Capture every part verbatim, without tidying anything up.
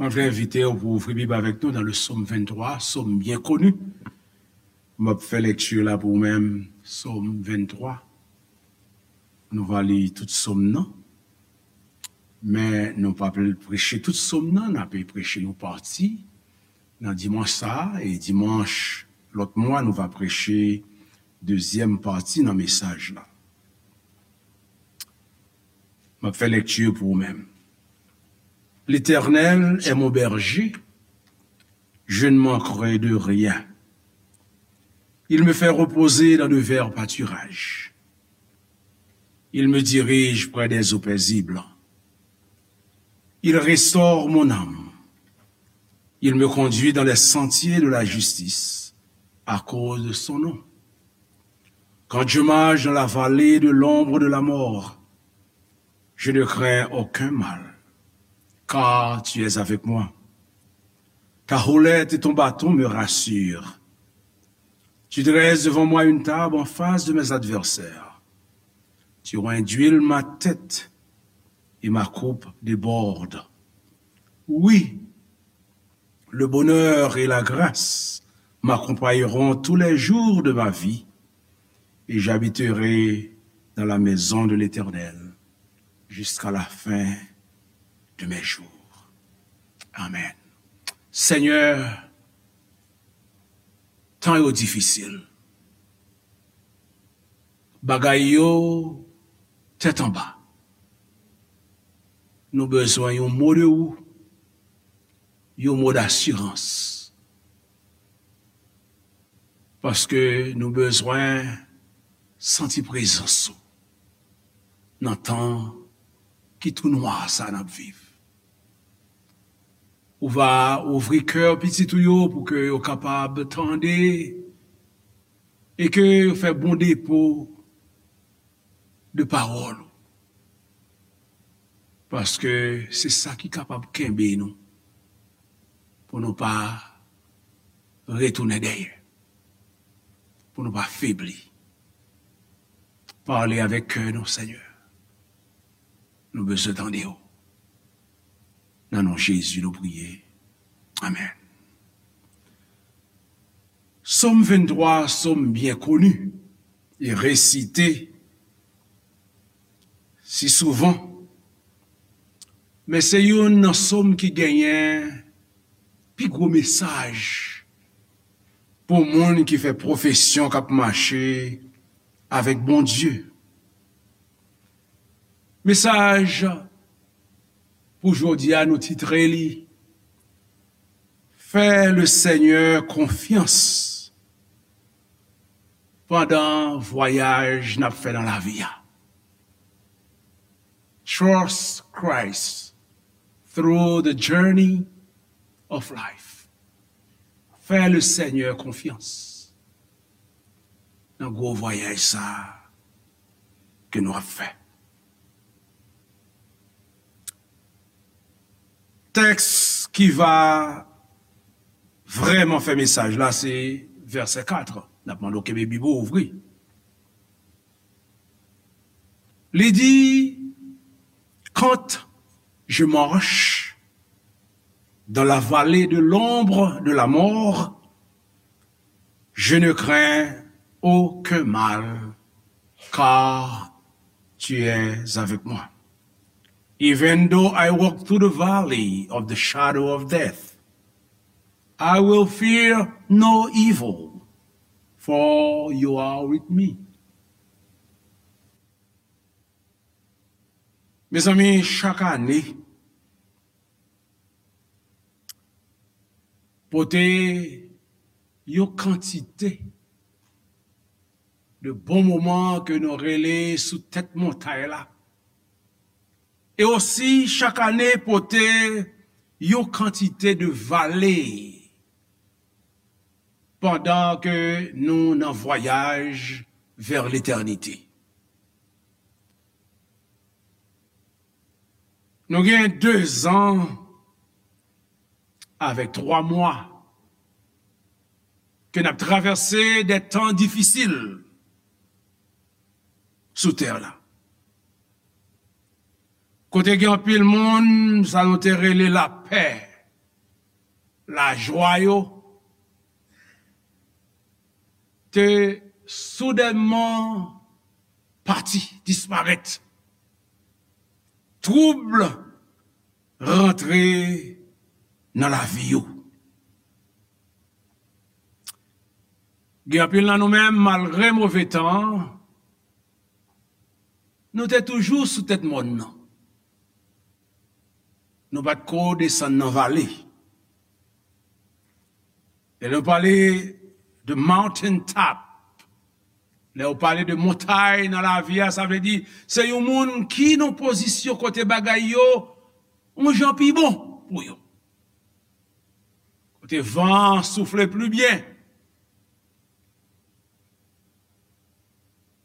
Mwen vle envite w pou ouvri Bib avèk nou nan le Sòm venntwa, Sòm byen koni. M ap fè lekti la pou ou menm, Sòm venntwa. Nou va li tout Sòm nan. Men nou p ap preche tout Sòm nan, n ap preche yon pati nan dimanch sa a, e dimanch lòt mwa, nou va preche dezyèm pati nan mesaj la. M ap fè lekti pou ou menm. L'Éternel est mon berger, je ne manquerai de rien. Il me fait reposer dans de verts pâturages. Il me dirige près des eaux paisibles. Il restaure mon âme. Il me conduit dans les sentiers de la justice à cause de son nom. Quand je marche dans la vallée de l'ombre de la mort, je ne crains aucun mal, car tu es avec moi. Ta houlette et ton bâton me rassurent. Tu dresses devant moi une table en face de mes adversaires. Tu induis ma tête et ma coupe déborde. Oui, le bonheur et la grâce m'accompagneront tous les jours de ma vie, et j'habiterai dans la maison de l'Éternel jusqu'à la fin de mes jours. Amen. Senyè, tan yo difisil. Bagay yo tèt anba. Nou bezwen yon mo de ou, yon mo dasirans. Paske nou bezwen santi prezans ou nan tan ki tou nwa sa n ap viv. Ou va ouvri kè pitit ou yo pou ke yo kapab tande e ke yo fè bon depo de pawòl ou. Paske se sa ki kapab kenbe nou pou nou pa retounen dèyè, pou nou pa febli. Pale avèk kè nou, Senyè. Nou bezwen tande w. Nan non Jezi nou priye. Amèn. Sòm venntwa, sòm byen koni e resite si souvan, men se youn nan sòm ki genyen pi gwo mesaj pou moun ki fè pwofesyon k ap mache avèk Bondye. Mesaj pou jodi a, nou titre li Fè le Senyè konfyans pandan vwayaj n ap fè nan lavi a. Trust Christ through the journey of life. Fè le Senyè konfyans nan gwo vwayaj sa a ke nou ap fè. Tèks ki va vrèman fè mesaj la se vèsè kat. N ap mande w kenbe Bib ou ouvri. Li di, quand je marche dans la vallée de l'ombre de la mort, je ne crains aucun mal, car tu es avec moi. Even though I walk through the valley of the shadow of death, I will fear no evil, for you are with me. Mezanmi, chak ane, pote yon kantite de bon moman ke nou rele sou tèt montay la. E osi, chak ane, pote yon kantite de vale pandan ke nou nan vwayaj vè letènite. Nou gen de zan avèk twa mwa ke n ap travèse de tan difisil sou tè la. Kote gen anpil moun, sa nou te rele lapè, lajwa yo te soudènman pati, disparèt. Twoub rantre nan lavi yo. Gen anpil nan nou menm, malgre move tan an, nou te toujou sou tèt mòn nan. Nou pa t ko desann nan vale. Lè nou pale de mountain top, lè w pale de montay nan lavi a, sa vle di se yon moun ki nan pozisyon kote bagay yo yon jan pi bon pou yo. Kote van an soufle pli byen.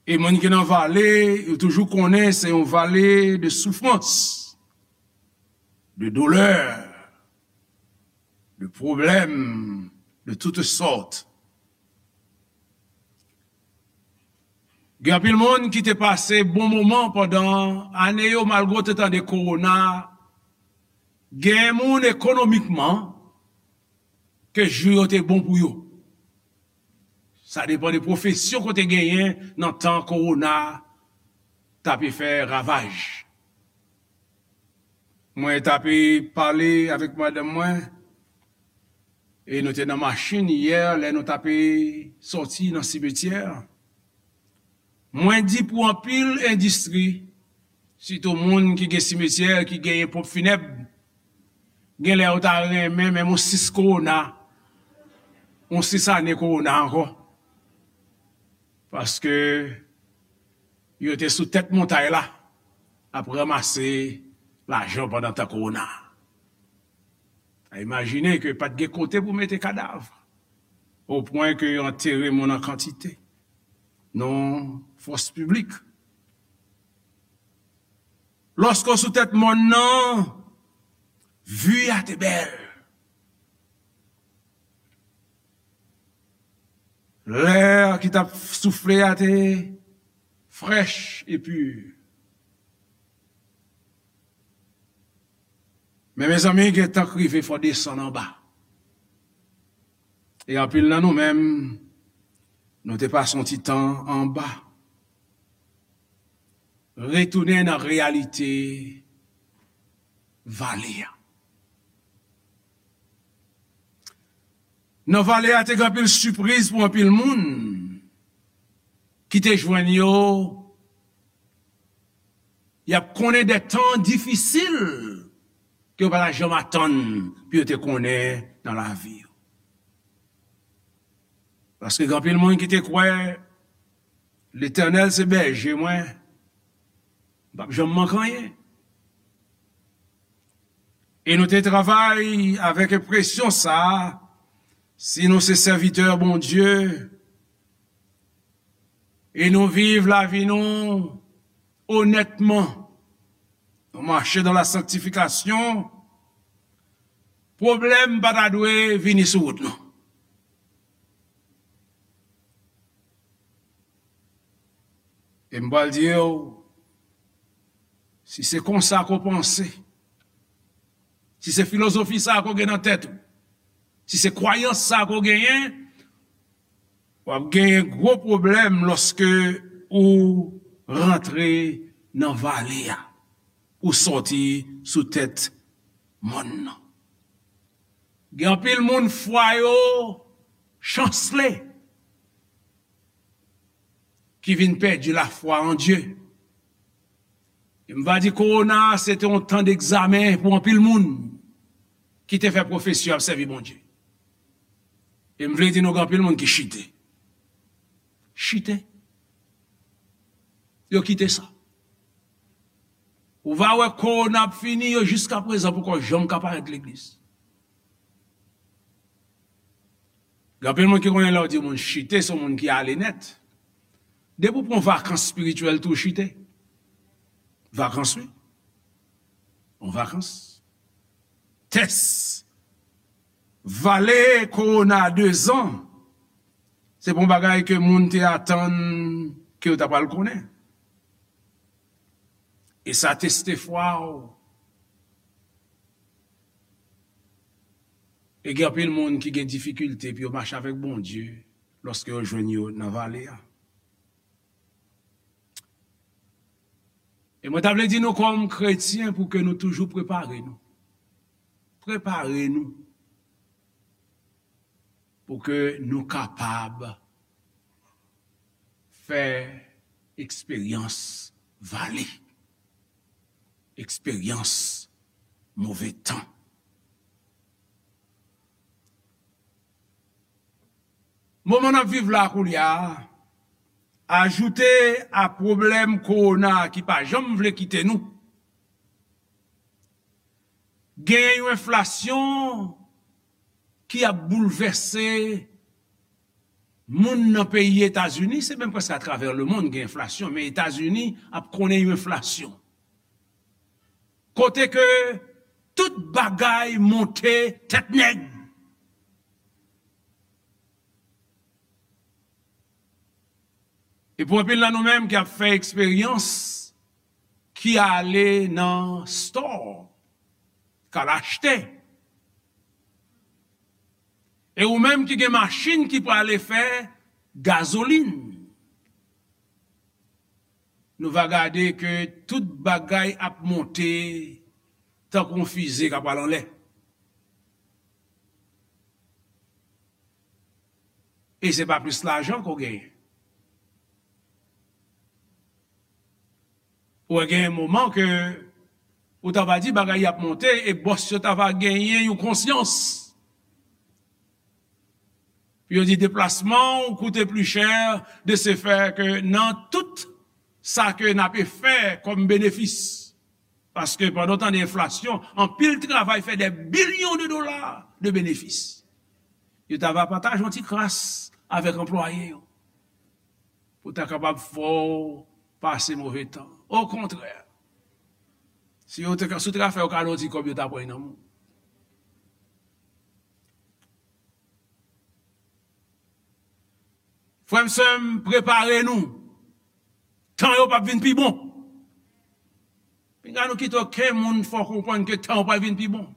E moun ki nan vale, yo toujou konnen se yon vale de soufrans, de doulè, de pwoblèm de tout sòt. Gen anpil moun ki te pase bon moman pandan ane yo, malgre yo te tande kowona. Gen moun ekonomikman ke jou yo te bon pou yo. Sa depann de pwofesyon ke w te genyen nan tan kowona t ape fè ravaj. Mwen t ape pale avèk madanm mwen, e nou te nan machin yè lè nou t ape sòti nan simetyè. Mwen di pou anpil endistri, sitou moun ki gen simetyè, ki genyen ponp finèb, gen lè yo ta renmen menm yon sis kowona, yon sis ane kowona ankò. Paske yo te sou tèt montay la ap ranmase lajan pandan tan kowona. A imajine ke pa t gen kote pou mete kadav, o pwen ke yo antere moun an kantite. Non fòs piblik. Lòske w sou tèt mòn nan, vi a te bèl. Lè ki t ap soufle a te frèch e pi. Men mezanmi, gen tan k rive fò w desann anba. E anpil nan nou menm, nou te pase yon ti tan anba. Retounen nan reyalite vale a. Nan vale a te gen anpil sipriz pou anpil moun ki te jwenn yo. Y ap konnen de tan difisil ke yo pa ta janm atann pou yo te konnen nan lavi yo. Paske gen anpil moun ki te kwè Letènèl se bèje mwen, m p ap janm manke anyen. E nou te travay avèk enpresyon sa a, si nou se sèvitè Bondye, e nou viv lavi nou onètman, nou mache dans la sanctification, pwoblèm pa ta dwe vini sou wout nou. E m pral di w, si se konsa ke w panse, si se filozofi sa ke w gen nan tèt ou, si se kwayans sa ke w genyen, w ap genyen gwo pwoblèm lòske ou rantre nan vale a, ou sòti sou tèt mòn nan. Gen anpil moun fwa yo chansle ki vin pèdi lafwa an Dye. E m va di kowona a se te yon tan degzamen pou anpil moun ki te fè pwofesi yo ap sèvi Bondye. E m vle di nou gen anpil moun ki chite. Chite. Yo kite sa. Ou va wè kowona ap fini, yo jiska prezan poko janm ka parèt legliz. Gen anpil moun ki konnen lè w di moun chite, se yon moun ki ale nèt. Depi w pran vakans espirityèl tou chite. Vakans, wi. Yon vakans. Tès. Vale kowona dezan. Se pa yon bagay ke moun te atann ke yo ta pral konnen. E sa teste fwa w. E gen anpil moun ki gen difikilte pou yo mache avèk Bondye lòske yo jwenn yo nan vale a. E mwen ta vle di nou kòm kretyen pou ke nou toujou prepare nou. Prepare nou pou ke nou kapab fè eksperyans vale, eksperyans move tan. Moman n ap viv la koulye a, ajoute a pwoblèm kowona ki pa janm vle kite nou, gen yon enflasyon ki ap boulvèse moun nan peyi Etazini, se menm prèske atravè lemonn gen enflasyon, men Etazini ap konnen yon enflasyon. Kote ke tout bagay monte tèt nèg. E pou anpil nan nou menm ki ap fè eksperyans, ki ale nan store, k al achte. E ou menm ki gen machin ki prale fè gazolin, nou va gade ke tout bagay ap monte tankou yon fize k ap pral anlè. E se pa plis lajan ke w genyen. Ou wè gen moman ke ou ta va di bagay y ap monte e bòs yo ta va genyen yon konsyans. Yo di deplasman ou koute pli chè, de se fè ke nan tout sa ke n ape fè kòm benefis. Paske pandan w tande enflasyon, anpil travay fè dè bilyon de dola de benefis. Yo ta va pataje yon ti kras avèk anplwaye yo pou ta kapab fè w pase move tan. Okontrè, si yo te ka, si w te ka fè yo kado ti kòb, yo ta pran nan men w. Frè m, sè m, prepare nou. Tan yo p ap vin pi bon. Pinga nou kite okenn moun fè w konprann ke tan yo pral vin pi bon.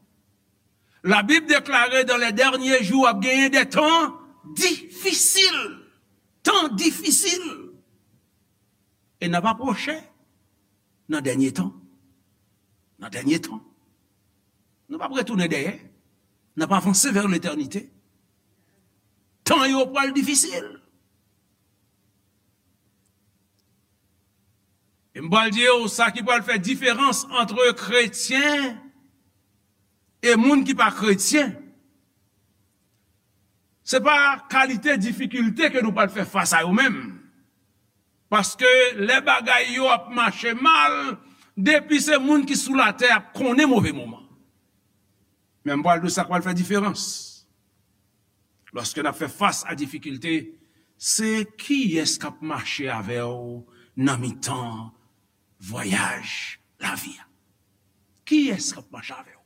Labib deklare dans les derniers jours ap genyen de tan difisil. Tan difisil. E n ap apwoche nan dènye tan. Nan dènye tan. Nou p ap retounen dèyè. N ap avanse vè letènite. Tan yo pral difisil. E m pral di w sa ki pral fè diferans ant kretyen e moun ki pa kretyen. Se pa kalite difikilte ke nou pral fè fas a yo menm. Paske lè bagay yo ap mache mal, depi se moun ki sou latè ap konnen move moman. Men m pral di w sa k pral fè diferans. Lòske n ap fè fas a difikilte, se kiyès k ap mache avè w nan mitan vwayaj lavi a? Kiyès k ap mache avè w?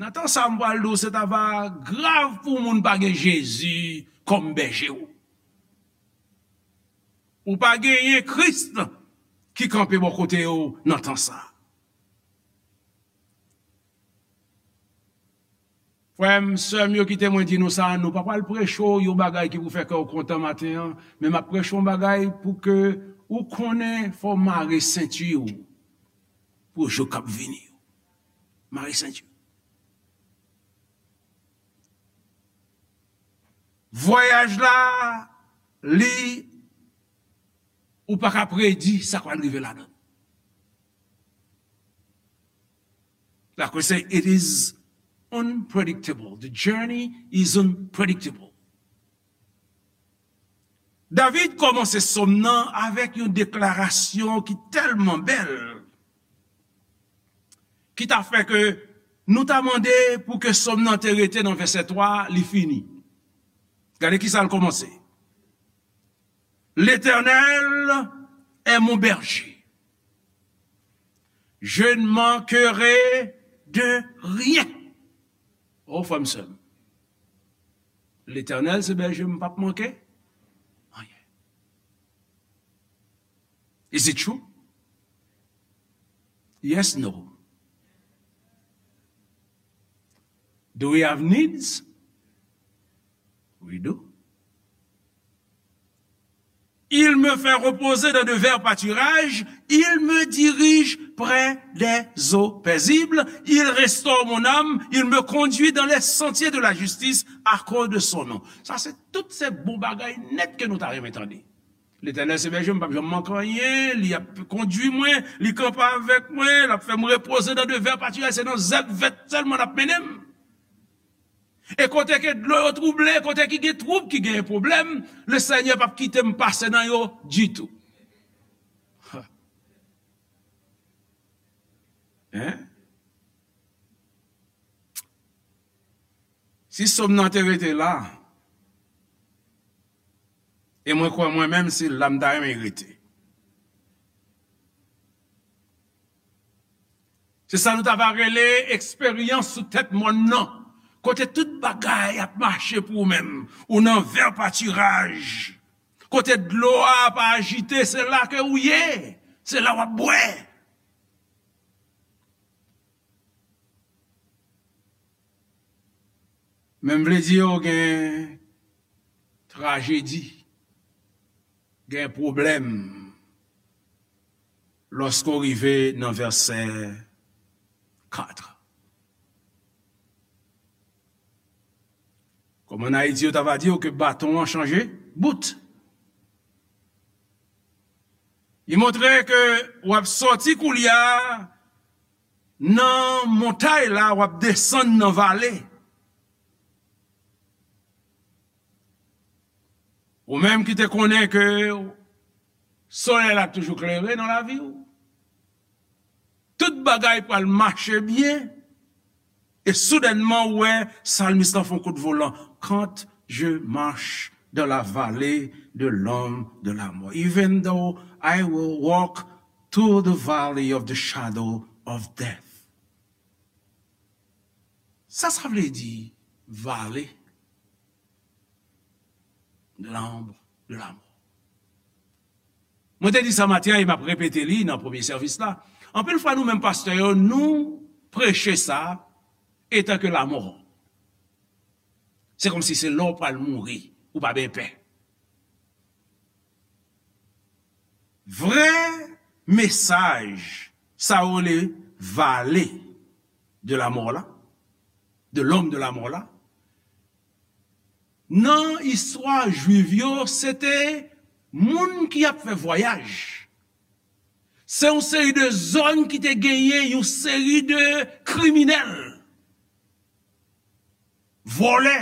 Nan tan sa, m pral di w, se ta va grav pou moun pa gen Jezi kòm bèje w. Ou pa genyen Kris ki kanpe bò kote w nan tan sa. Frè m, sè m yo, kite mwen di nou sa, nou pa pral preche w yon bagay ki pou fè kè w kontan maten an, men m ap preche w yon bagay pou ke ou konnen fò w mare senti w pou jou k ap vini yo. Mare senti w. Vwayaj la, li, ou pa ka predi sa k pral rive ladan l. Like we say, it is unpredictable. The journey is unpredictable. David kòmanse sòm nan avèk yon deklarasyon ki tèlman bèl, ki ta fè ke nou ta mande pou ke sòm nan te rete nan vèsè twa, li fini. Gade ki sa l kòmanse. L'Éternel est mon berger. Je ne manquerai de rien. Oh, frè m, sè m. Letènèl se bèje m, m p ap manke anyen. Is it true? Yes, no. Do we have needs? We do. Il me fait reposer dans de verts pâturages, il me dirige près des eaux paisibles, il restaure mon âme, il me conduit dans les sentiers de la justice à cause de son nom. Sa se tout se bon bagay nèt ke nou ta renmen tande. Letènèl se bèje m, m p ap janm manke anyen, li ap kondui mwen, li kanpe avèk mwen, l ap fè m repoze nan de vè patiraj, se nan zèb vèt sèlman l ap mennen m. E kote ke dlo yo twouble, kote ki gen twoub, ki gen pwoblèm, le Senyè p ap kite m pase nan yo ditou. Hein? Si sòm nan te rete la, e mwen kwè mwen menm se la m ta renmen rete. Se sa nou ta va rele eksperyans sou tèt mòn nan, kote tout bagay ap mache pou ou menm, ou nan vè patiraj, kote dlo a ap ajite, se la ke ou ye, se la w ap bwè. Men m vle di yo gen trajedi, gen pwoblèm lòske w rive nan vèsè kat. Kòm ann Ayiti yo ta va di w ke baton an chanje bout. Li montre ke w ap sòti koulye a nan montay la, w ap desann nan vale. Ou menm ki te konnen ke solèy la toujou klere nan lavi w, tout bagay pral mache byen, e soudènman ou wè salmis lan fè yon kout volan. Quand je marche dans la vallée de l'ombre de la mort, even though I will walk through the valley of the shadow of death. Sa sa vle di, vale de l'ombre de la mort? Mwen te di sa maten an e m ap repete li nan premye sèvis la. Anpil fwa nou menm pastè yo, nou preche sa etan ke lamò. Se kòmsi se lè w pral mouri, ou pa byen pè. Vrè mesaj sa yo rele vale de lamò la, de l'ombre de la mort la, nan istwa jwif yo, se te moun ki ap fè vwayaj. Se yon seri de zòn ki te genyen yon seri de kriminèl, vòlè,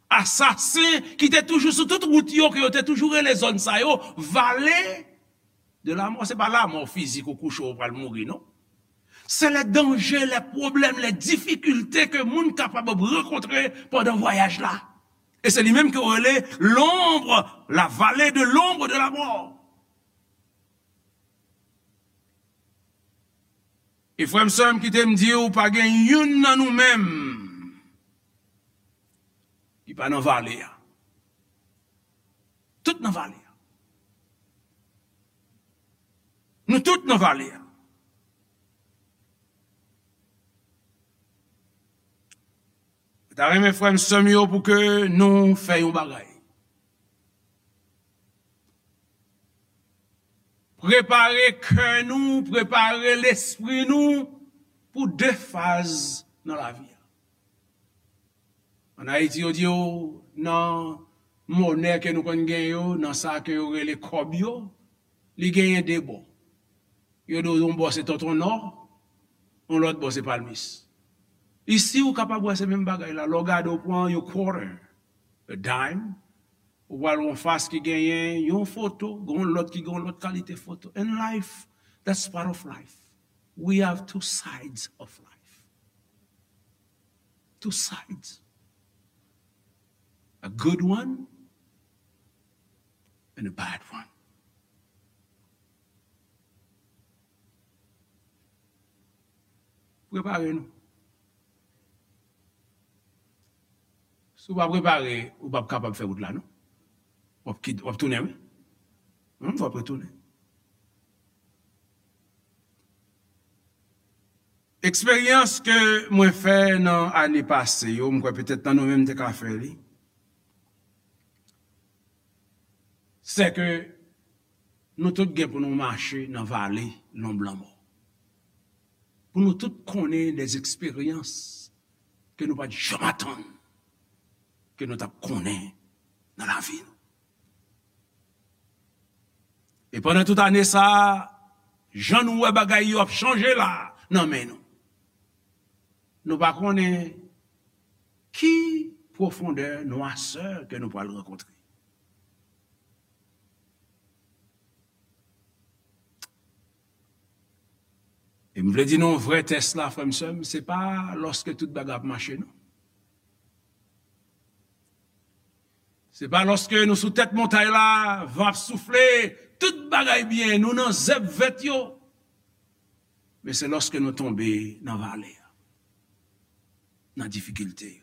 asasen ki te toujou sou tout wout yo, ke yo te toujou rele zòn sa yo vale de lamò. Se pa lamò fizik ou kouche ou pral mouri, non. Se lè danje, lè pwoblèm, lè difikilte ke moun kapab ap rankontre pandan vwayaj la. E se li menm ke yo rele l'ombre, la vallée de l'ombre de la mort. E frè m, sè m, kite m di w, pa gen youn nan nou menm ki pa nan vale a. Tout nan vale a. Nou tout nan vale a. Mwen ta renmen, frè m, sè m yo, pou ke nou fè yon bagay. Prepare kè nou, prepare lespri nou pou de faz nan lavi a. Ann Ayiti, yo di yo, nan monè ke nou konn gen yo, nan sa ke yo rele kòb yo, li genyen de bò. Yo di w yon bò se Tonton Nò, yon lòt bò se Palmis. Isi, ou kapab wè se menm bagay la. Lè w gade, w pran yon quarter, a dime, ou pral yon fas ki genyen yon foto, gen yon lòt ki gen yon lòt kalite foto. In life, that's part of life. We have two sides of life. Two sides. A good one and a bad one. Prepare nou. Si w pa prepare, ou p ap kapab fè wout la, non. W ap kit-, w ap tounen, wi. Hum, w ap retounen. Eksperyans ke mwen fè nan ane pase yo, m kwè petèt nan nou menm te ka fè li, se ke nou tout gen pou nou mache nan vale lonb lanmò. Pou nou tout konnen de eksperyans ke nou pa t janm atann ke nou t ap konnen nan lavi nou. E pandan tout ane sa a, jan nou wè bagay yo ap chanje la nan men nou, nou pa konnen ki pwofondè nwasè ke nou pral rankontre. E m vle di nou, vrè tès la, frè m, sè m, se pa lòske tout bagay ap mache, non. Se pa lòske nou sou tèt montay la, van ap soufle, tout bagay byen, nou nan zèb vèt yo. Men se lòske nou tonbe nan vale a, nan difikilte yo.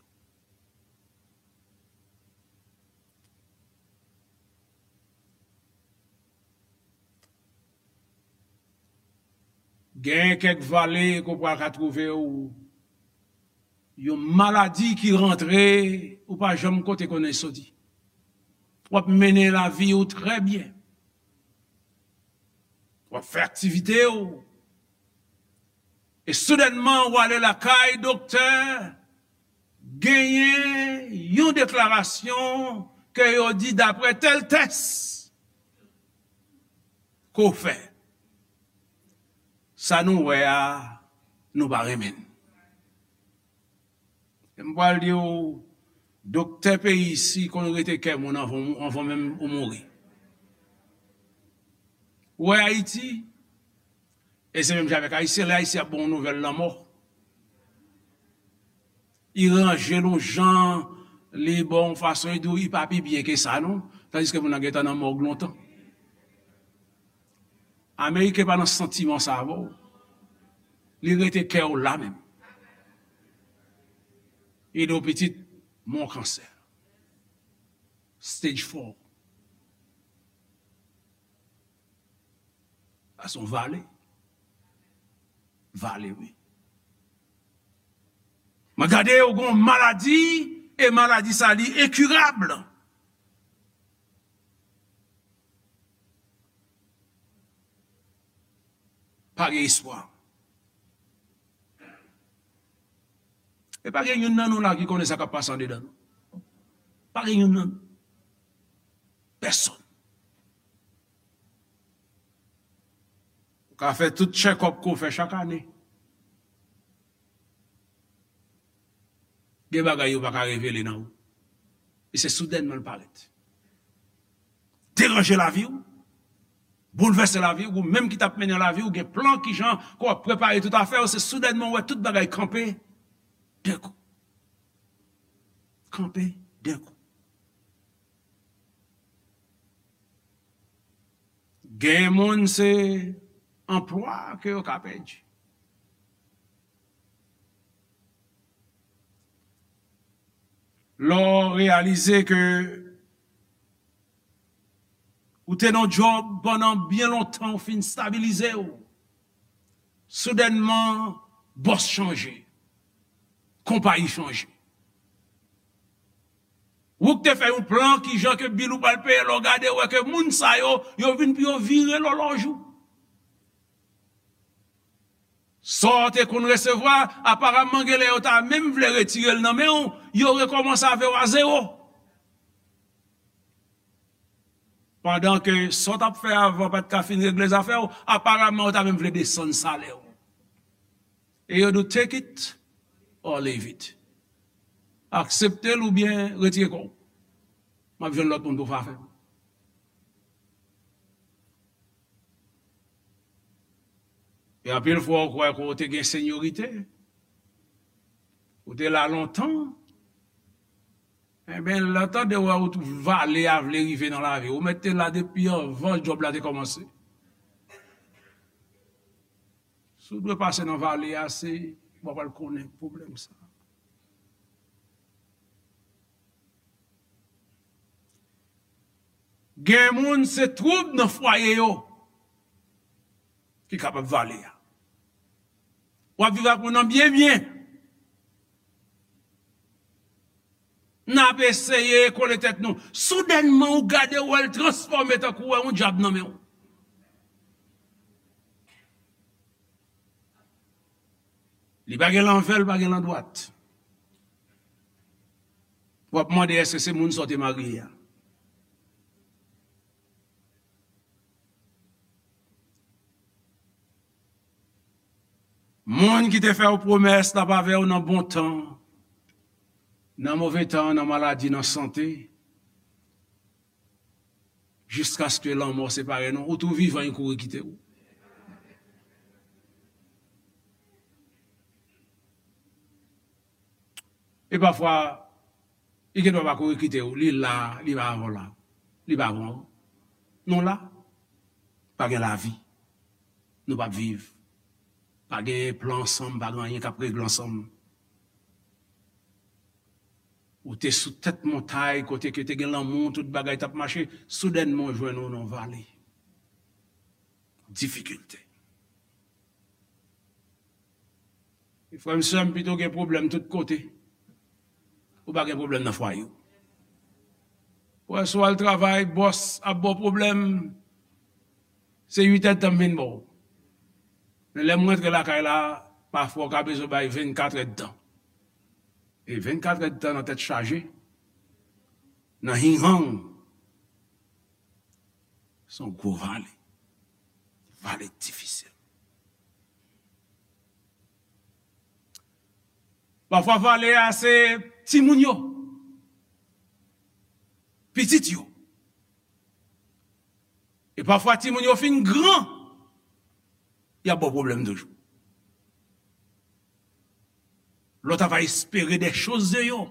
Gen kèk vale ke w pral ka twouve w, yon maladi ki rantre, ou pa janm kote konnen soti. W ap mennen lavi w trè byen. W ap fè aktivite w. E soudènman, w ale lakay doktè, genyen yon deklarasyon ke yo di, daprè tèl tès ke w fè, sa nou wè a, nou pa renmen l. E m pral di w, doktè peyi isi konn rete kè moun anvan, anvan menm ou mouri. Ou wè Ayiti, e se menm jan avèk Ayisyen, lè Ayisyen ap ba w nouvèl lanmò, li ranje l yon jan, li ba w yon fason, li di w li pa pi byen ke sa, non, tandiske moun nan gentan nan mòg lontan. Ameriken pa nan santiman sa avè w. Li rete kè w la menm. Li di w pitit, m gon kansè. Stage four. Sa se yon vale. Vale, wi. Mwen gade, ou gon maladi, e maladi sa li enkirab. Pa gen espwa. E pa gen youn nan nou la ki konnen sa k ap pase andedan nou. Pa gen youn nan nou. Pèsonn. Ou ka fè tout check-up ke w fè chak ane. Gen bagay yo pa ka revele nan ou. E se soudènman l parèt. Deranje lavi w, boulvèse lavi w, ou menm ki t ap mennen lavi w, gen plan kijan ke w ap prepare tout afè w, se soudènman w wè tout bagay kanpe, denkou. Kanpe, denkou. Gen moun se anplwa ke yo ka pèdi. Lè w reyalize ke ou te nan djòb pandan byen lontan, ou fin stabilize w. Soudènman, bòs chanje. Konpayi chanje. Ou k te fè yon plan kijan ke bil ou pral peye, lè w gade, w wè ke moun sa yo, yo vin pou yo vire lòlòj ou. Sa w te konn resevwa, aparamman, gen lè yo ta menm vle retire l nan men w, yo rekòmanse avè w a zewo. Pandan ke sa w t ap fè avan pa t ka fin regle zafè w, aparamman, yo ta menm vle desann salè w. E yo di w, take it or leave it. Aksepte l oubyen retire kò w. M ap jwenn lòt moun pou fè afè m. E anpil fwa, ou kwè ke w te gen senyorite. Ou te la lontan. Enben, lè w tande wè ou tou vale a vle rive nan lavi w, ou mèt te la depi anvan djòb la te kòmanse. Si w dwe pase nan vale a, se, w pral konnen pwoblèm sa. Gen moun se twoub nan fwaye yo ki kapab vale a. W ap viv ak moun nan byen, byen. N ap eseye kole tèt nou. Soudènman, ou gade, w wè l transfòme tankou w wè yon dyab nan men w. Li pa gen lanvè, li pa gen landwat. W ap mande, èske se moun sa w te marye a? Moun ki te fè w pwomès l ap avè w nan bon tan, nan move tan, nan maladi, nan sante, jiskaske lanmò separe nou, ou tou vivan, li kouri kite w. E pafwa, li gendwa pa kouri kite w, li la, li pa avè w la, li pa avè w. Nou la, pa gen lavi, nou p ap viv. Pa gen plan ansanm, pa gen anyen k ap regle ansanm. Ou te sou tèt montay, kote ke te gen lanmou, tout bagay t ap mache, soudènman w jwenn ou nan vale. Difikilte. Frè m, sè m, pito gen pwoblèm tout kote, ou pa gen pwoblèm nan fwaye w. Ou wè, si w al travay, bòs ap ba w pwoblèm, se uit èdtan m vin ba w. Men lè m rantre lakay la, pafwa w ka bezwen bay vennkat èdtan. E vennkat èdtan nan tèt chaje, nan hinghang, se yon gwo vale. Vale difisil. Pafwa vale a se timoun yo, pitit yo. E pafwa timoun yo fin gran, y ap ba w pwoblèm toujou. Lè w ta va espere des choses de yo,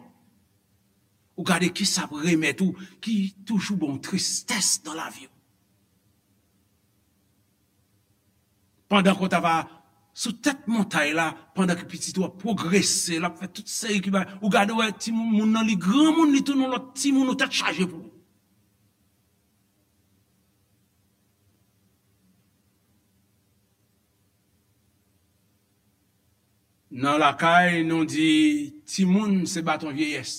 ou gade kisa ap remèt ou, ki toujou ba w tristès nan lavi w. Pandan ke w ta va sou tèt montay la, pandan ke pitit ou ap pwogrese, l ap fè tout seri ki bagay, ou gade w wè timoun, moun nan li granmoun, li tounen yon lòt timoun, ou tèt chaje pou ou. Nan lakay, nou di, timoun se baton vyeyès.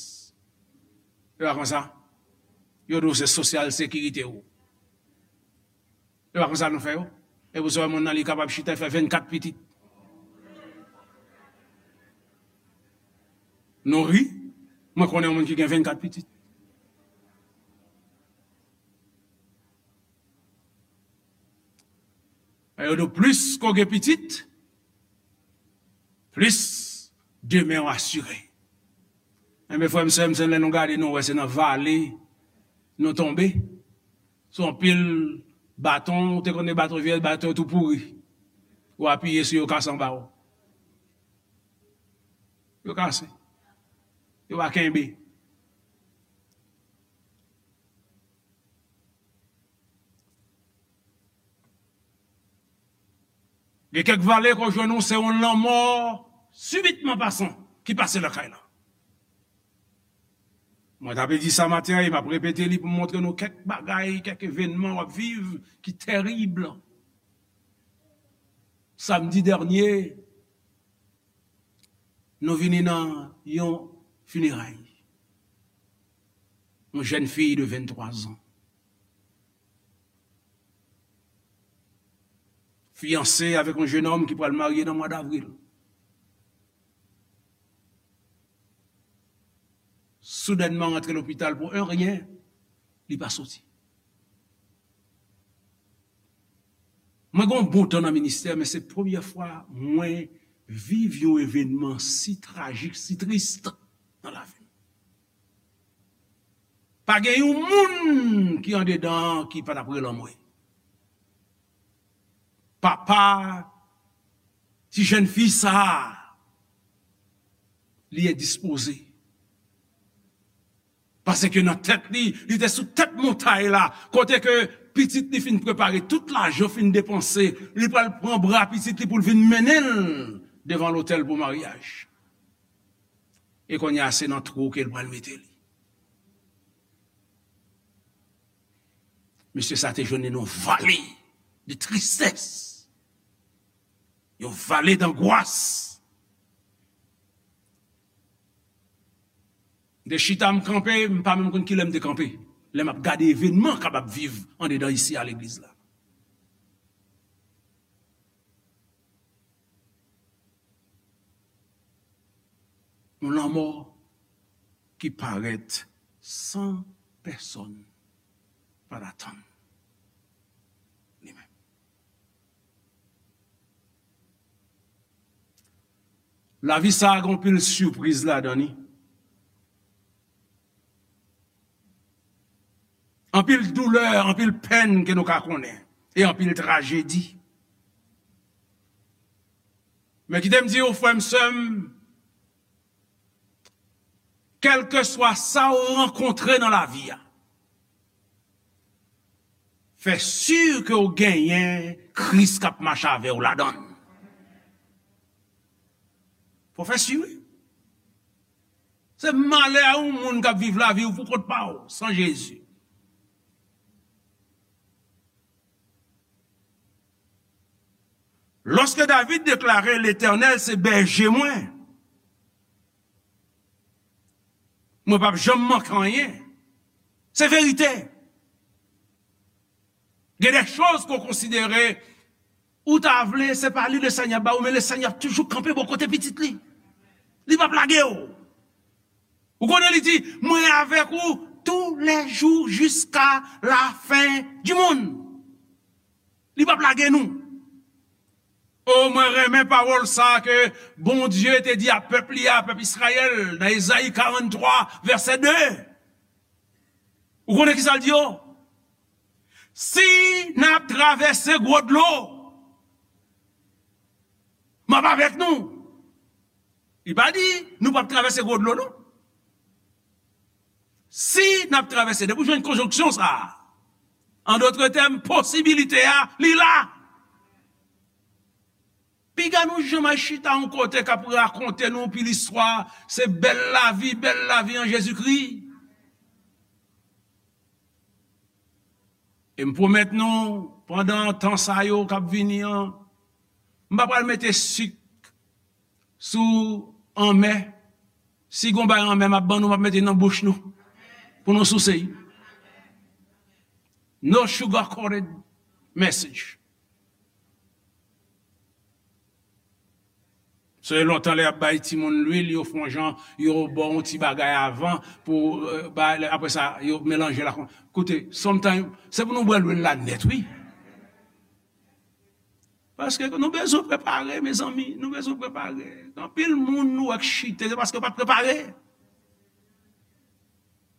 E pa konsa? Yo di w se sosyal sekirite w. E pa konsa nou fè yo? E pou sa, moun nan li kapab chita, e fè vennkat pitit. Nou ri, mwen konnen yon moun ki gen vennkat pitit. E yo di w plis ke w gen pitit, plis demen w asire. Enben, frè m, sè m, se lè nou gade, nou wè se nan vale nou tonbe. Se yon pil baton, ou te konnen baton vyeyès, baton yo tou pouri. Ou apiye sou yo, kase anba w. Yo kase. Yo pa kenbe. Gen kèk vale ke w jwenn ou, se yon lanmò sibitman pasan ki pase lakay la. Mwen t ap di sa maten an, e m ap repete li pou m montre nou kèk bagay, kèk evènman w ap viv ki tèrib. Samdi dènye, nou vini nan yon fineray. Yon jèn fi de venntwa zan. Fiyanse avèk yon jennonm ki pral marye nan mwa davril. Soudènman rantre lopital pou en ryen, li pa soti. Mwen gen yon bon tan nan ministè, men se premyè fwa mwen viv yon evènman si trajik, si tris nan lavi m. Pa gen yon moun ki andedan an ki pa t ap rele anmwe. Papa ti jèn fi sa a, li endispoze. Paske nan tèt li, li te sou tèt montay la, kote ke pitit li fin prepare, tout lajan fin depanse, li pral pran bra pitit li pou l vin mennen l devan lotèl pou maryaj. E kounye a, se nan twou ke l pral mete li. Mesye sa te jwenn li nan yon vale de tristès. Yon vale dangwas. M te chita, m kanpe, m pa menm konn kilè m te kanpe. Lè m ap gade evènman k ap ap viv andedan isi a legliz la. Yon lanmò ki parèt san pèsonn pa t atann li menm. Lavi sa a gen anpil sipriz ladan li. Anpil doulè, anpil pèn ke nou ka konnen, e anpil trajedi. Men kite m di w, frè m, sè m, kèlkeswa sa w rankontre nan lavi a, fè si ke w genyen Kris k ap mache avè w ladan l. Fò fè si, wi. Se malè a yon moun k ap viv lavi w pou kont pa w, san Jezi. Lòske David deklare, Letènèl se bèje mwen, mwen p ap janm manke anyen. Se verite. Gen de choz ke w konsidere, ou ta vle, se pa li Lesenyè ba ou, men Lesenyè ap toujou kanpe bò kote pitit li. Li p ap lage w. Ou konnen li di, mwen avèk ou tou lè jou jiska lafen di monn. Li p ap lage nou. O, mwen renmen pawòl sa ke Bondye te di a pèp li a, pèp Izrayèl, nan Ezayi karanntwa, vèsè de. Ou konnen ki sa l di yo? Si n ap travèse gwo dlo, m ap avèk nou. Li pa di nou p ap travèse gwo dlo, non. Si n ap travèse, depi w jwenn konjonksyon sa a, an dòt tèm, posibilite a, li la. Piga nou janm al chita yon kote k ap rakonte nou anpil istwa, se bèl lavi, bèl lavi an Jezikri. E m pwomèt nou, pandan tan sa yo k ap vini an, m pa pral mete sik sou anmè. Si gon bagay anmè m ap ban nou, m ap mete nan bouch nou pou nou souse. No sugar coated message. Se lontan lè y ap bay timoun lwil, yo fè yon jan, yo ba yon ti bagay avan pou, euh, bay, apre sa, yo melanje l ak, koute, sometimes, se pou nou bwè lwil la nèt, wi. Paske nou bezwen prepare, mezanmi, nou bezwen prepare. Anpil moun nou wè k chite, se paske yo pa t prepare.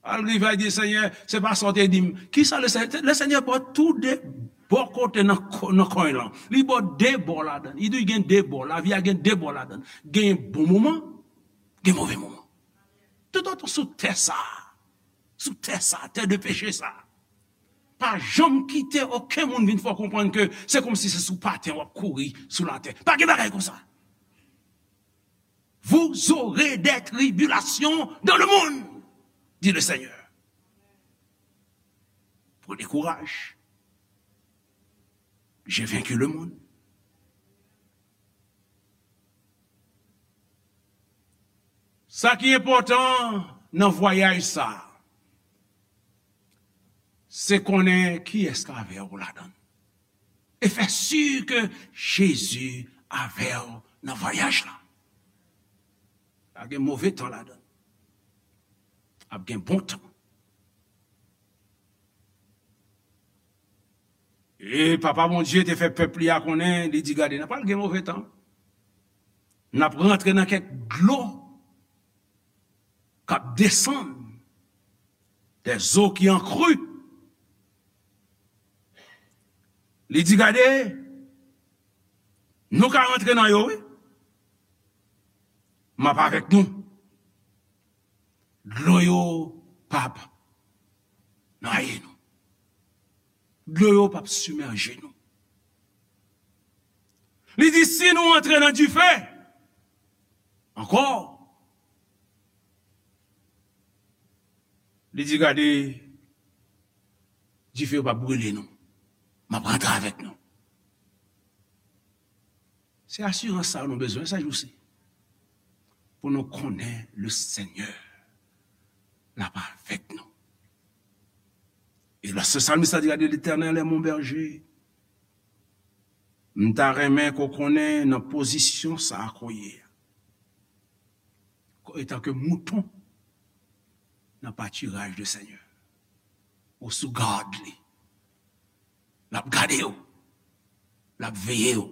Al rive a di, Senyè, se pa sa w te di m. Kisa Lesenyè, Lesenyè ba w tou de bò kote nan ko-, nan kwen lan. Li ba w de bò ladan. Li di w gen de bò. Lavi a gen de bò ladan. Gen bon moman, gen move moman. Toutotan sou tè sa, sou tè sa, tè de peche sa, pa janm kite okenn moun vin fè w konprann ke se kòmsi se sou paten w ap kouri sou latè. Pa gen bagay konsa. Vous aurez des tribulations dans le monde, dit le Seigneur. Prenez courage. J'ai vaincu le monde. Sa ki enpòtan nan vwayaj sa, se konnen kiyès k avè w ladan l. E fè si ke Jezi avè w nan vwayaj la. Ap gen move tan ladan l. Ap gen bon tan. E Papa Bondye te fè pèp li a konnen, li di, gade, n ap pral gen move tan. N ap rantre nan kèk dlo k ap desann, des eaux qui en crue. Li di, gade, nou ka rantre nan yo, wi. M ap avèk nou. Dlo yo p ap nwaye nou. Dlo yo p ap simèje nou. Li di, si nou antre nan dife ankò, li di, gade, dife yo p ap brile nou. M ap rantre avèk nou. Se asirans sa nou bezwen sa jou si. Pou nou konnen le Seigneur l ap avèk nou. E lòske salmis la di, gade, Letènèl è mon bèje. M ta renmen ke w konnen nan pozisyon sa a ke w ye a. Etanke mouton nan patiraj de Senyè. Ou sou gad li. L ap gade w. L ap veye w.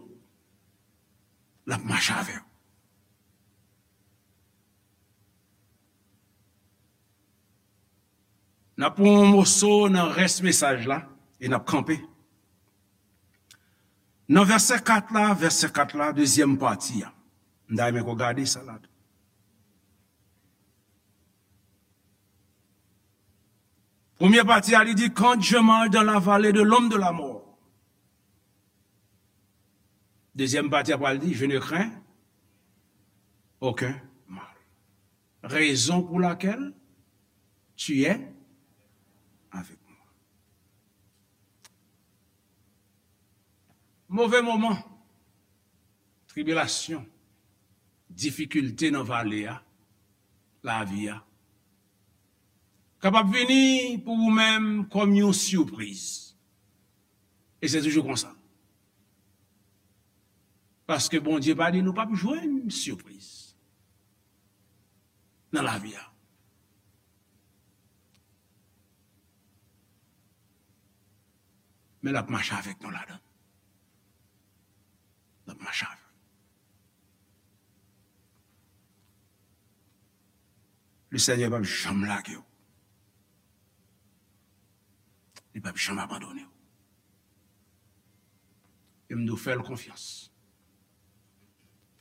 L ap mache avè w. N ap pran yon moso nan rès mesaj la e n ap kanpe. Nan vèsè kat la, vèsè kat la, dezyèm pati a. M ta renmen ke w gade sa la tou. Premye pati a, li di, quand je marche dans la vallée de l'ombre de la mort. Dezyèm pati a pral di, je ne crains aucun mal. Raison pour laquelle tu es avec moi. Move moman, tribilasyon, difikilte nan vale a, lavi a, kapab vini pou ou menm kòm yon sipriz. E se toujou konsa. Paske Bondye pa di nou p ap jwenn sipriz nan lavi a. Men l ap mache avèk nou ladan. L ap mache avèk nou. Le Senyè p ap janm lage w. Li p ap janm abandone w. E m di w, fè l konfyans.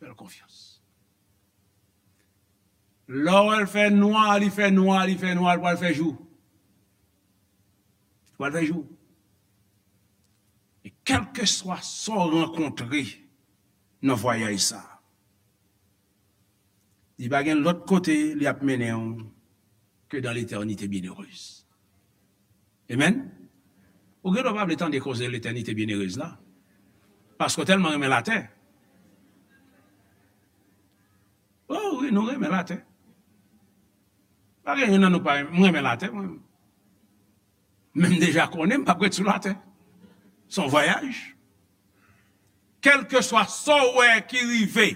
Fè l konfyans. Lè w wè l fè nwa, li fè nwa, li fè nwa, l pral fè jou. L pral fè jou. E kèlkeswa sa w rankontre nan vwayaj sa a, li pa gen lòt kote li ap mennen w ke dans l'éternité bienheureuse. Amen. Ou gen dwa pa vle tande koze l'éternité bienheureuse la. Paske w tèlman renmen latè. Oh wi, nou renmen latè. Pa gen youn nan nou pa renmen, mwen renmen latè, mwen. Men m deja konnen m p ap ret sou latè. Se yon vwayaj. Kèlkeswa sa w wè ki rive,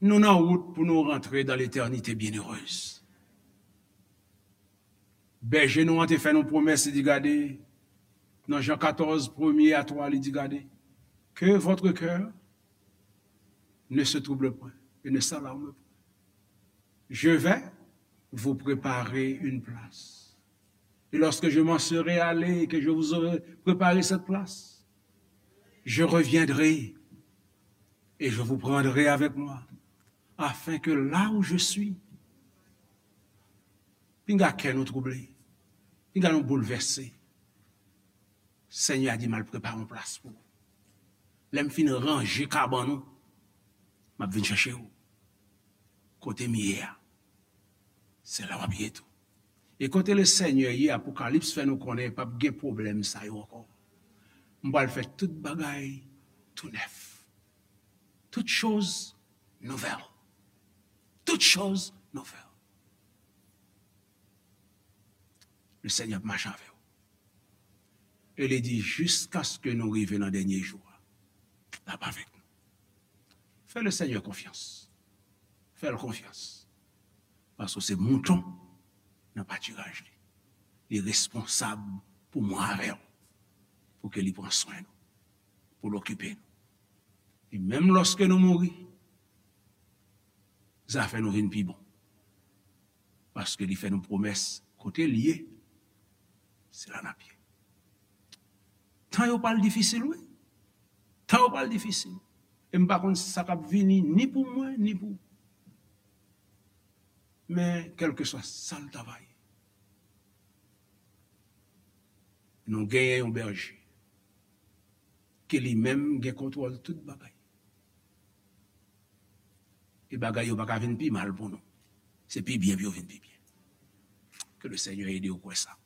nou nan wout pou nou rantre dans l'éternité bienheureuse. Bèje nou an te fè nou pwomès, li di, gade, nan Jan katòz, premye a twa, li di, gade, que votre cœur ne se trouble point et ne s'alarme point. Je vais vous préparer une place. Et lorsque je m'en serai allé et que je vous aurai préparé cette place, je reviendrai et je vous prendrai avec moi, afin que là où je suis, pinga kè nou twouble, pinga nou boulvèse. Senyè a di, m al prepare yon plas pou ou. Lè m fin ranje kabann ou, m ap vin chèche ou. Kote m ye a, se la w ap ye tou. E kote le Senyè ye, Apokalips fè nou konnen p ap gen pwoblèm sa yo ankò. M pral fè tout bagay tou nèf. Toutes choses nouvelles. Toutes choses nouvelles. Le Senyè ap mache avè w. E li di, jiskaske nou rive nan dènye jou a, l ap avèk nou. Fè le Senyè konfyans. Fè l konfyans. Paske se mouton nan patiraj li. Li responsab pou mwen avè w. Pou ke li pran swen nou. Pou l okipe nou. E menm lòske nou mouri, zafè nou vin pi bon. Paske li fè nou pwomès, kote l ye, se la n ap ye. Tan yo pral difisil, wi. Tan yo pral difisil. E m pa konn sa k ap vini, ni pou mwen, ni pou ou. Men, kèlkeswa sa l ta va ye, nou genyen yon bèje ke li menm gen kontwòl tout bagay. E bagay yo pa ka vin pi mal pou nou. Se pi byen pou yo vin pi byen. Ke le Senyè ede w kwè sa.